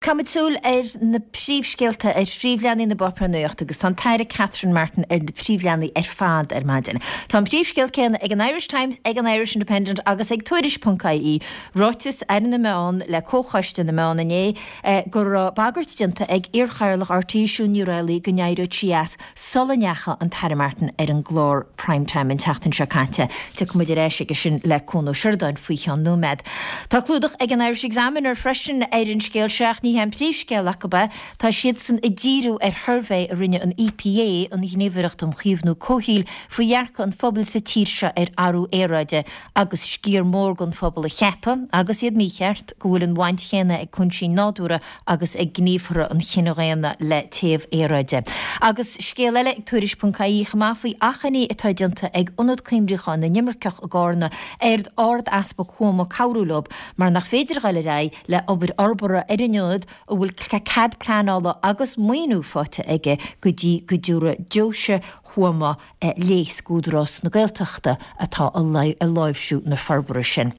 Caithfimid súil ar na príomhscéalta ar phríomhleathanaigh na bpáipéar nuachta agus tá an tAire Catherine Martin ar na príomhleathanaigh ar fad ar maidin. Tá an príomhscéal céanna ag an Irish Times, ag an Irish Independent agus ag Tuairisc ponc ie. Ráiteas Aire na Meán le Comhchoiste na Meán inné go raibh bagairt déanta ag iarchathaoirleach RTÉ Siún Ní Raghallaigh go n-éireodh sí as sula ndeachaigh an tAire Martin ar an gclár Prime Time an tseachtain seo caite. Tiocfaidh muid ar ais aige sin le Cuan Ó Seireadáin faoi cheann nóiméad. Tá clúdach ag an Irish Examiner freisin ar an scéal seo ach ní hé an príomhscéal acu é. Tá siadsan ag díriú ar shuirbhé a rinne an EPA, an Ghníomhaireacht um Chaomhnú Comhshaoil, faoi dhearcadh an phobail sa tír seo ar athrú aeráide agus sciar mór den phobal a cheapadh, agus iad mícheart, go bhfuil an bhaint chéanna ag cúinsí nádúrtha agus ag gníomhartha an chine dhaonna le téamh aeráide. Agus scéal eile ag Tuairisc ponc ie chomh maith faoi achainí atá déanta ag Ionad Cuimriúcháin na nImirceach i gCárna ar Ard-Easpag Thuama cabhrú leo mar nach féidir a dhul ar aghaidh le obair fhorbartha ar an ionad a bhfuil cead pleanála agus maoiniú faighte aige go dtí go dtabharfaidh Deoise Thuama léas d'Údarás na Gaeltachta atá ag láimhsiú na forbartha sin.